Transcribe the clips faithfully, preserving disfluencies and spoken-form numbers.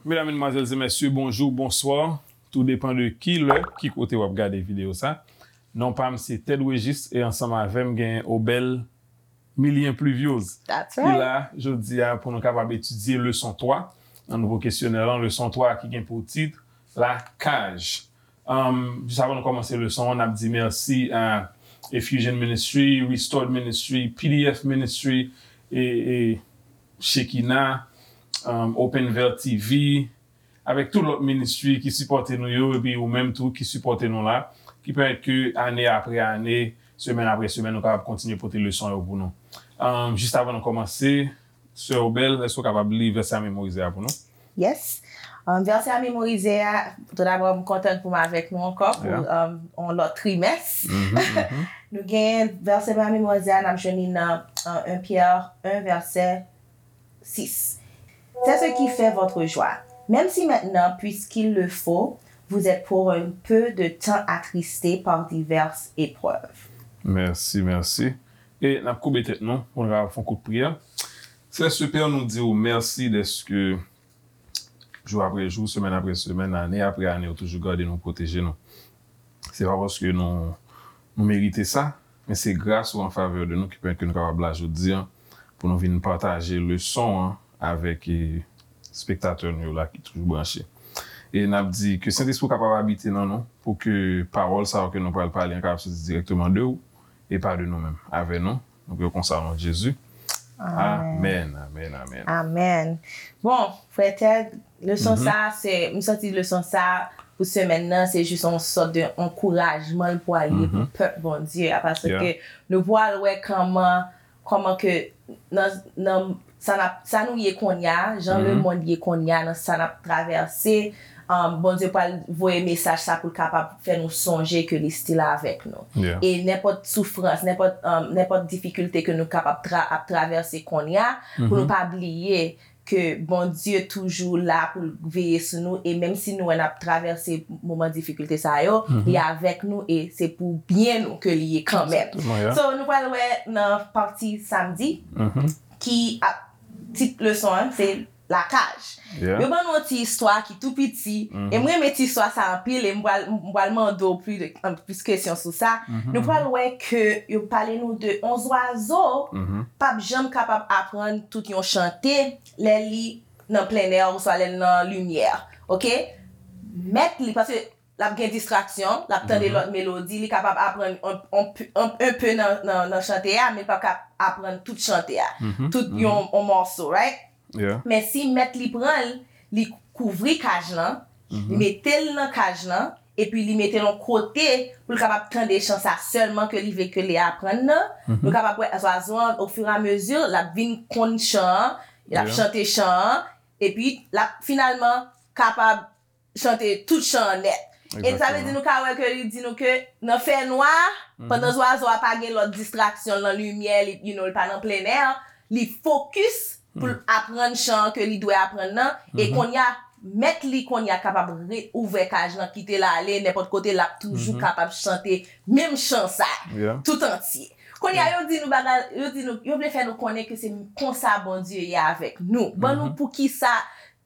Medam, medmwazèl e mesye, bonjou, bonswa. Tou depan de ki lè, ki kote w ap gade videyo sa. Non pa m se Ted Regis e ansanm avè m gen Obel Milien Pluviose. Ki la jodi a pou nou kapab etidye leson twa nan nouvo kesyonè lan, leson twa ki gen pou tit Lakaj. Um, jis avan nou kòmanse leson an, n ap di mèsi a Effusion Ministry, Restored Ministry, P D F Ministry, e, e Shekinah, um, Open Veil T V, avèk tout lòt ministry ki sipòte nou yo, epi ou menm tou ki sipòte nou la, ki pèmèt ke ane apre ane, semèn apre semèn, nou kapab kontinye pote leson yo pou nou. Um, jis avan nou kòmanse, Sè Obel, èske w kapab li vèsè a memorize a pou nou? Yes. Um, vèsè a memorize a, tou dabò, m kontan pou m avèk nou ankò pou um, yon lòt trimès. Nou gen vèsè a memorize a, n ap jwenn li nan uh, un Pyè un, vèsè six. C'est ce qui fait votre joie. Même si maintenant, puisqu'il le faut, vous êtes pour un peu de temps attristés par diverses épreuves. Mèsi, mèsi. E n ap koube tèt nou pou n kapab fè yon kout priyè. Sè Sipè, nou di w mèsi dèske jou apre jou, semèn apre semèn, ane apre ane, ou toujou gade nou, pwoteje nou. Se pa paske nou, nou merite sa, men se gras ou an favè de nou ki pèmèt ke nou kapab la jodi a pou nou vin pataje leson an avèk e, spektatè nou yo la ki toujou branche. E n ap di ke Sentespri w kapab abite nan nou pou ke pawòl sa yo ke nou pral pale an kapab soti dirèkteman de ou e pa de nou menm. Avè nou, nou priye konsa o non de Jezi. Amèn, amèn, amèn. Amèn. Bon, frè Ted, leson sa, se, m santi leson sa pou semèn nan, se jis yon sòt de ankourajman l pwal ye pou pèp Bondye a, paske nou pwal wè kòman, kòman ke nan, nan sa n ap, sa nou ye kounye a, jan lemonn ye kounye a, nan sa n ap travèse, um, Bondye pral voye mesaj sa pou l kapab fè nou sonje ke li still avèk nou. E nenpòt soufrans, nenpòt, um, nenpòt difikilte ke nou kapab tra, ap travèse kounye a, pou nou pa bliye ke Bondye toujou la pou l veye sou nou, e menm si nou wè n ap travèse moman difikilte sa yo, li avèk nou e se pou byen nou ke li ye kanmenm. So, nou pral wè nan pati samdi, ki ap, tit leson an, se lakaj. Yo ban nou yon ti istwa ki tou piti, e m renmen ti istwa sa anpil, e m pral, m pral mande w plis de, plis kesyon sou sa. Nou pral wè ke yo pale nou de yon zwazo p ap janm kapab aprann tout yon chante lè li nan plennè oswa lè l nan limyè. Oke? Mèt li, paske l ap gen distraksyon, l ap tande lòt melodi, li kapab aprann yon, yon, yon, yon pe nan, nan, nan chante a, men l p ap ka aprann tout chante a, tout yon, yon mòso, right? Men si mèt li pran l, li kouvri kaj lan, li mete l nan kaj lan, epi li mete l yon kote pou l kapab tande chan sa sèlman ke li vle ke li aprann nan, nou kapab wè zwazo an, ofiramezi, l ap vin konn chan an, l ap chante chan an, epi l ap finalman kapab chante tout chan an nèt. E sa vle di nou ka wè ke li di nou ke nan fènwa, pandan zwazo a pa gen lòt distraksyon nan limyè, li, you know, li pa nan plennè, li fokis pou l aprann chan an ke li dwe aprann nan. E kounye a, mèt li kounye a kapab re, ouvè kaj lan, kite l ale nenpòt kote, l ap toujou kapab chante menm chan sa, tout antye. Kounye a, yo di nou bagay, yo di nou, yo vle fè nou konnen ke se konsa Bondye ye avèk nou. Ban nou poukisa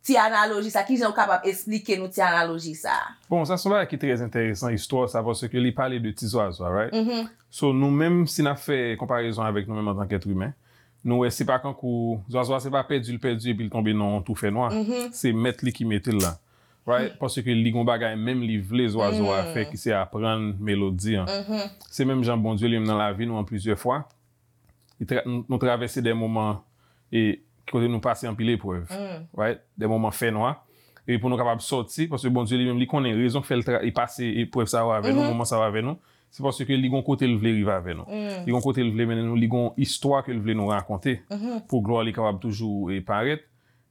ti analoji sa, kijan ou kapab esplike nou ti analoji sa? Bon, sa se yon bagay ki trè enteresan, istwa sa, paske li pale de ti zwazo a, right? So, nou menm, si n ap fè konparezon avèk nou menm antanke èt imen, nou wè se pa kankou zwazo a se pa pèdi l pèdi epi l tonbe nan yon twou fènwa. Se mèt li ki mete l la. Right? Paske li gon bagay menm li vle zwazo a fè ki se aprann melodi an. Se menm jan Bondye li menm nan lavi nou an plizyè fwa. Li tra, nou, nou travèse de moman e kote nou pase anpil eprèv, right? De moman fènwa. Epi pou nou kapab sòti, paske Bondye li menm, li konnen rezon k fè l tra, li pase eprèv sa yo avè nou, moman sa yo avè nou, se paske li gon kote l vle rive avè nou. Li gon kote l vle mennen nou, li gon istwa ke l vle nou rakonte pou glwa li kapab toujou e parèt.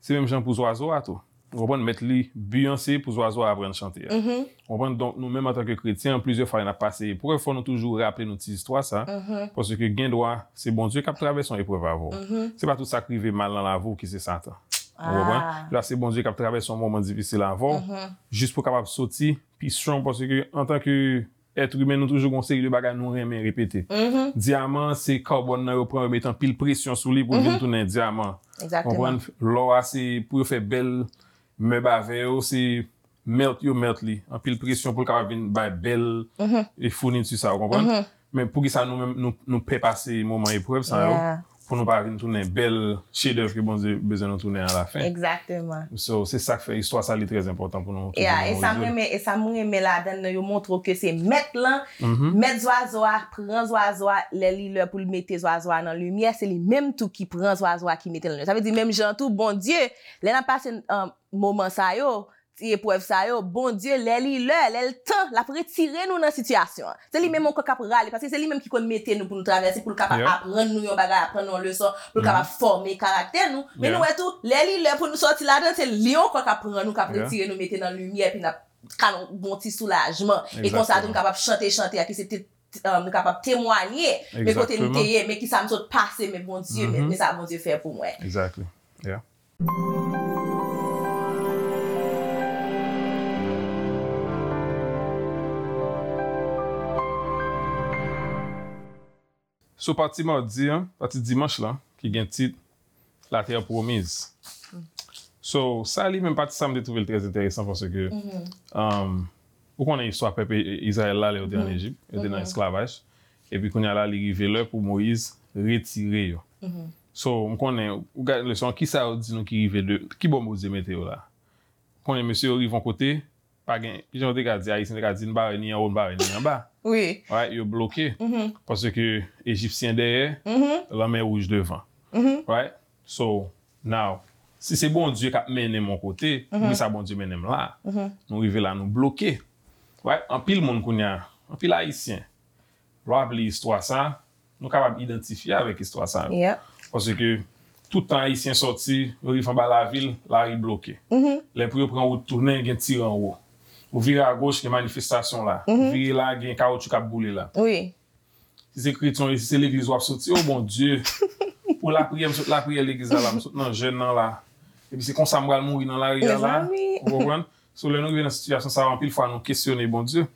Se menm jan pou zwazo a tou. Ou konprann, mèt li, bi an se pou zwazo a aprann chante a. Ou konprann? Donk, nou menm antanke kretyen, plizyè fwa lè n ap pase eprèv, fò nou toujou raple nou ti istwa sa, paske gen dwa se Bondye k ap travèse yon eprèv avè w. Se pa tout sa k rive mal nan lavi w ki se Satan. Ou konprann? Gen dwa se Bondye k ap travèse yon moman difisil avè w, jis pou w kapab soti pi strong, paske antanke èt imen, nou toujou gon seri de bagay nou renmen repete. Dyaman, se kabòn nan yo pran, yo met anpil presyon sou li pou l vin tounen dyaman. Konprann? Lò a, se pou yo fè bèl Mèb avè yo, se melt yo melt li. Anpil presyon pou l kapab vin bay bèl e founiti sa, ou konprann? Men poukisa nou menm, nou, nou pè pase moman eprèv sa yo, pou nou pa vin tounen bèl chedèv ke Bondye bezwen nou tounen alafen. Egzakteman. So, se sa k fè istwa sa li trè enpòtan pou nou toujou memorize l. Yeah, e sa m renmen, e sa m renmen ladan l, yo montre w ke se mèt lan, mèt zwazo a pran zwazo a, lè li lè pou l mete zwazo a nan limyè, se li menm tou ki pran zwazo a ki mete l nan limyè. Sa vle di menm jan tou, Bondye, lè n ap pase, um, moman sa yo, ti eprèv sa yo, Bondye, lè li lè, lè l tan, l ap retire nou nan sitiyasyon an. Se li menm ankò k ap rale, paske se li menm ki konn mete nou pou nou travèse, pou l kapab aprann nou yon bagay, aprann nou yon leson, pou l kapab fòme karaktè nou. Men nou wè tou, lè li lè pou nou sòti ladan, se li ankò k ap pran nou, k ap retire nou, mete nan limyè, epi n ap ka nan yon bon ti soulajman. E konsa tou, nou kapab chante chante a, ki se te, um, nou kapab temwanye, men kote nou te ye, men kisa m sot pase, men Bondye, men, men sa Bondye fè pou mwen. Exactly. Yeah. So, pati madi an, pati dimanch lan, ki gen tit La Terre Promise. So, sa li menm pati sa m te twouve l trè enteresan paske, um, ou konnen istwa pèp I-, Izrayèl la, lè yo te ann Ejip, yo te nan esklavaj. Epi kounye a la, li rive lè pou Moyiz retire yo. So, m konnen, ou gade leson an, kisa yo di nou ki rive de, ki bò Bondye mete yo la? Konnen mesye yo rive yon kote, pa gen, kijan yo te ka di, Ayisyen te ka di, n pa wè ni anwo, n pa wè ni anba. Wi. Right, yo bloke. Paske Ejipsyen dèyè, lanmè wouj devan. Right? So, now, si se Bondye k ap mennen m yon kote, poukisa Bondye mennen m la? Nou rive la, nou bloke. Right? Anpil moun kounye a, anpil Ayisyen, lè w ap li istwa sa, nou kapab idantifye avèk istwa sa yo. Paske tout tan Ayisyen sòti, yo rive anba lavil, lari bloke. Lè pou yo pran wout tounen, gen tire anwo. Ou vire agoch, gen manifestasyon la. Ou vire la, gen kawotchou k ap boule la. Wi. Si se kretyen, si se legliz w ap soti, o Bondye, pou lapriyè, m sot lapriyè legliz la la, m sot nan jèn nan la. Epi se konsa m pral mouri nan lari a la. Mezanmi. Ou konprann? So, lè nou rive nan sitiyasyon sa yo, anpil fwa nou kesyone Bondye.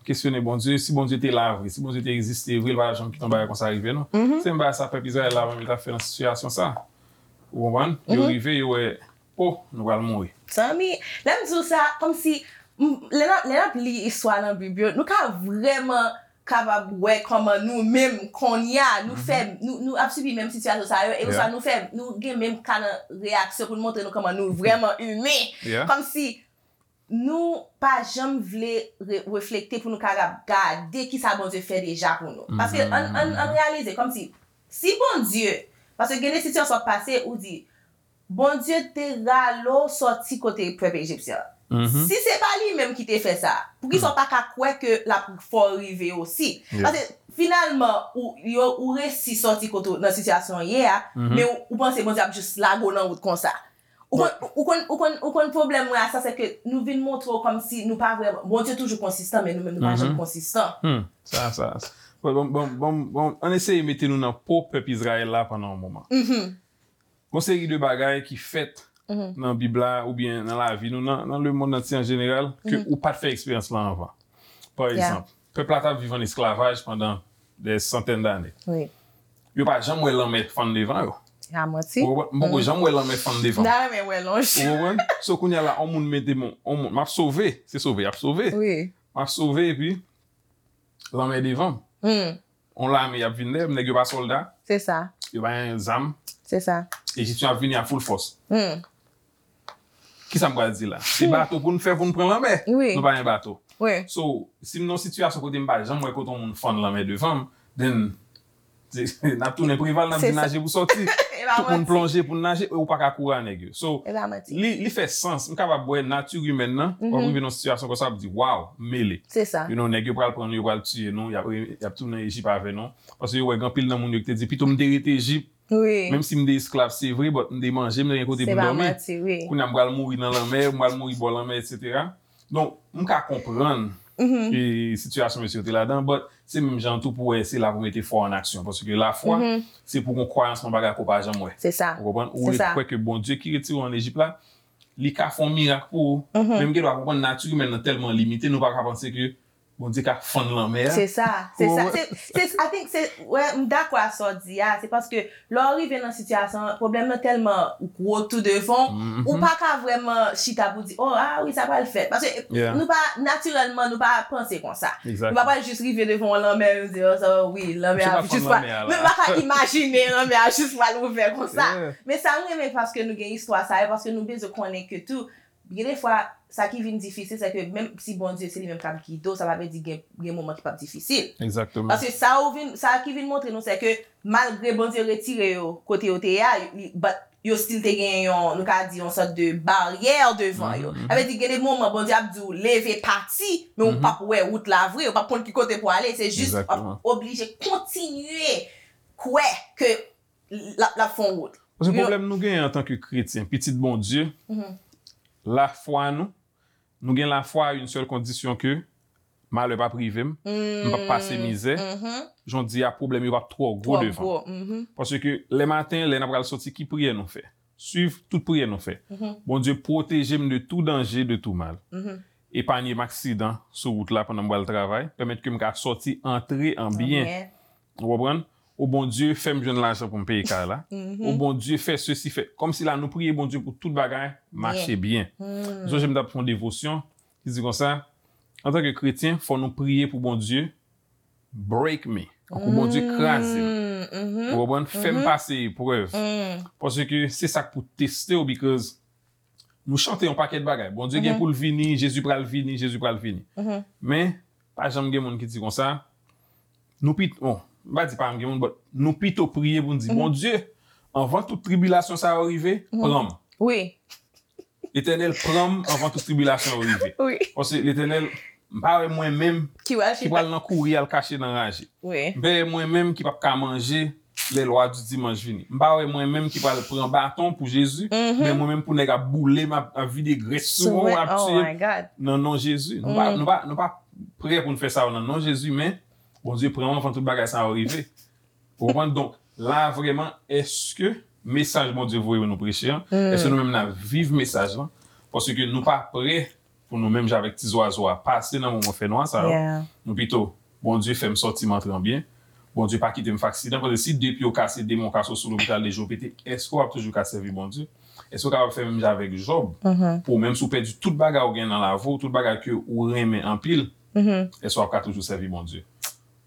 Kesyone Bondye, si Bondye te la vre, si Bondye te egziste vre, li pa t ap janm kite yon bagay konsa rive nou. Se menm bagay sa pèp Izrayèl la menm yo t ap fè nan sitiyasyon sa. Ou konprann? Yo rive, yo wè, o, nou pral mouri. Zanmi, lè m di w sa, kòmsi, m, lè n ap, lè n ap li istwa nan Bib yo, nou ka vrèman kapab wè kòman nou menm kounye a, nou fè, nou, nou ap sibi menm sitiyasyon sa yo, e oswa nou fè, nou gen menm ka nan reyaksyon pou nou montre nou kòman nou vrèman imen. Kòmsi nou pa janm vle re-, reflekte pou nou kapab gade kisa Bondye fè deja pou nou. Paske ann, ann, ann reyalize, kòmsi, si Bondye, paske gen de sitiyasyon w ap pase, ou di, Bondye te rale w sòti kote pèp ejipsyen an. Si se pa li menm ki te fè sa, poukisa w pa ka kwè ke l ap fè w rive osi? Paske finalman, ou, yo, ou resi sòti kote w nan sitiyasyon w ye a, men ou, ou panse Bondye ap jis lage w nan wout konsa. Ou konn, ou konn, ou konn, ou konn pwoblèm mwen a sa, se ke nou vin montre w kòmsi nou pa vrèman, Bondye toujou konsistan, men nou menm nou pa janm konsistan. Hmm. Sa, sa, sa. Bon, bon, bon, bon, bon, ann eseye mete nou nan po pèp Izrayèl la pandan yon moman. Gon seri de bagay ki fèt nan Bib la oubyen nan lavi nou, nan, nan lemonn antye an jeneral, ke ou pa t fè eksperyans lan anvan. Pa egzanp, pèp la t ap viv an esklavaj pandan dè santèn dane. Wi. Yo pa janm wè lanmè fann devan yo. A manti. Ou konprann? M poko janm wè lanmè fann devan m. M ta renmen wè l yon jou. Ou konprann? So, kounye a la, yon moun mete m, yon moun, m ap sove, se sove, y ap sove. Wi. M ap sove, epi lanmè devan m. Hmm. On lame y ap vin dèyè m, nèg yo pa sòlda. Se sa. Yo pa gen zam. Se sa. Ejipsyen ap vini a full fòs. Hmm. Kisa m pral di la? Se bato pou n fè pou n pran lanmè. Wi. Nou pa gen bato. Wi. So, si m nan yon sitiyasyon kote m pa janm wè kote yon moun fann lanmè devan m, then, se, n ap tounen Preval, n ap di naje pou sòti. Tout moun plonje pou n naje, e ou pa ka kouri a nèg yo. So, li, li fè sans. M kapab wè nati imèn nan, w ap rive nan yon sitiyasyon konsa, w ap di, "Waw, m mele." Se sa. You know, nèg yo pral pran nou, yo pral tiye nou, y ap, y ap tounen Ejip avè nou. Paske yo wè gen anpil nan moun yo ki te di, "Pito m te rete Ejip, wi, menm si m te esklav, se vre, but m te manje, m te gen kote pou m dòmi. Kounye a m pral mouri nan lanmè, m pral mouri bò lanmè, etsetera." Donk, m ka konprann, e, sitiyasyon mesye yo te ladan, but se menm jan tou pou wè se la pou mete fwa an aksyon. Paske lafwa, se pou gon kwayans nan bagay ke w pa janm wè. Se sa. Ou konprann? Ou kwè ke Bondye ki retire w ann Ejip la, li ka fè yon mirak pou ou. Men m gen dwa konprann nati imèn nan tèlman limite, nou pa ka panse ke Bondye ka fann lanmè a. Se sa, se sa. Ou- Se, se, I think se, wè, m dakò a sa w di a. Se paske lè w rive nan sitiyasyon an, pwoblèm nan tèlman gwo tou devan w, ou pa ka vrèman chita pou di, oh, ah wi, sa pral fèt. Paske Yeah. nou pa, natirèlman, nou pa panse konsa. Nou Exactly. pa pral jis rive devan yon lanmè, nou di, oh, sa, wi, lanmè Misye a pa fann jis pral. Lanmè a Men la. m pa ka imajine lanmè a jis pral ouvè konsa. Yeah. Men sa m renmen paske nou gen istwa sa yo, paske nou bezwen konnen ke tou, gen de fwa, sa ki vin difisil, se ke menm si Bondye se li menm k ap gide w, sa pa vle di gen, gen moman ki p ap difisil. Exactement. Paske sa ou vin, sa ki vin montre nou, se ke malgre Bondye retire yo kote yo te ye a, li- but yo still te gen yon, nou ka di, yon sòt de baryè devan yo. Sa vle di, gen de moman, Bondye ap di w, leve, pati, men ou p ap wè wout la vre, ou p ap konn ki kote pou ale, se jis w ap Exactement. Oblije kontinye kwè ke l ap, l ap fè yon wout. Paske You know- pwoblèm nou genyen antanke kretyen, pitit Bondye, lafwa nou, nou gen lafwa a yon sèl kondisyon ke malè p ap rive m, m p ap pase mizè, jan w di a pwoblèm yo p ap twò gwo Twò devan. Gwo, mhm. Paske lè maten, lè n ap pral soti, ki priyè nou fè? Swiv tout priyè nou fè. Bondye, pwoteje m de tou danje, de tou mal. Epanye m aksidan sou wout la pandan m pral travay, pèmèt ke m ka sòti, antre an byen. Amen. Ou konprann? O Bondye, fè m jwenn lajan pou m peye kay la. O Bondye, fè sesi, fè. Kòmsi la, nou priye Bondye pou tout bagay mache byen. M sonje m t ap fè yon devosyon ki di konsa, antanke kretyen, fò nou priye pou Bondye break me. Pou Bondye kraze m. Ou konprann? Fè m pase eprèv. Paske se sa k pou teste w, because nou chante yon pakèt bagay. Bondye gen pou l vini, Jezi pral vini, Jezi pral vini. Men, pa janm gen moun ki di konsa, nou pito, bon, m pa di pa janm gen moun, but nou pito priye pou n di, Bondye, anvan tout tribilasyon sa yo rive, pran m. Wi, Letènèl, pran m anvan tout tribilasyon yo rive. wi. Paske Letènèl, m pa wè mwen menm Ki wè ki pral nan kouri al kache nan raje. Wi. M pa wè mwen menm ki p ap ka manje lè lwa di dimanch vini. M pa wè mwen menm ki pral pran baton pou Jezi, men mwen menm pou nèg ap boule m, ap, ap vide grès sou mwen, ap Oh tiye my God. nan non Jezi. Nou pa, nou pa, nou pa prè pou n fè sa yo nan non Jezi, men Bondye pran m anvan tout bagay sa yo rive. Ou konprann? Donk, la vrèman, èske mesaj Bondye voye nou preche an, èske nou menm n ap viv mesaj lan? Paske nou pa prè pou nou menm jan avèk ti zwazo a pase nan moman fènwa sa yo. Yeah. Nou pito, Bondye fè m sòti m antre an byen. Bondye pa kite m fè aksidan. Paske si de pye w kase, de men w kase, w sou lopital, de je w pete, èske w ap toujou ka sèvi Bondye? Èske w kapab fè menm jan avèk Jòb? Pou menm si w pèdi tout bagay ou gen nan lavi w, tout bagay ke ou renmen anpil, èske w ap ka toujou sèvi Bondye?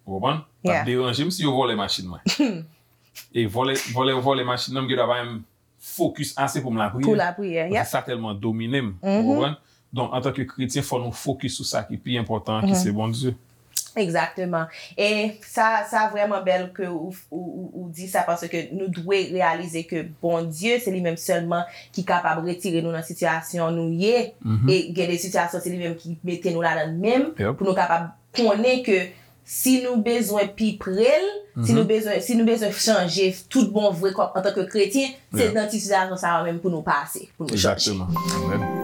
Ou konprann? L ap Yeah. deranje m si yo vòlè machin mwen. E vòlè, vòlè, vòlè machin nan, m gen dwa pa menm fokis ase pou m lapriyè. Pou lapriyè, yep. Paske sa tèlman domine m. Ou konprann? Donk, antanke kretyen, fò nou fokis sou sa ki pi enpòtan, ki se Bondye. Egzakteman. E sa, sa vrèman bèl ke ou, ou, ou, ou di sa, paske nou dwe reyalize ke Bondye, se li menm sèlman ki kapab retire nou nan sitiyasyon nou ye. E gen de sitiyasyon, se li menm ki mete nou ladan l menm, Yep. Pou nou kapab konnen ke si nou bezwen pi pre l, si nou bezwen, si nou bezwen chanje tout bon vre kòm antanke kretyen, se Yeah. nan ti sitiyasyon sa yo menm pou nou pase, pou nou chanje. Egzakteman. Amen.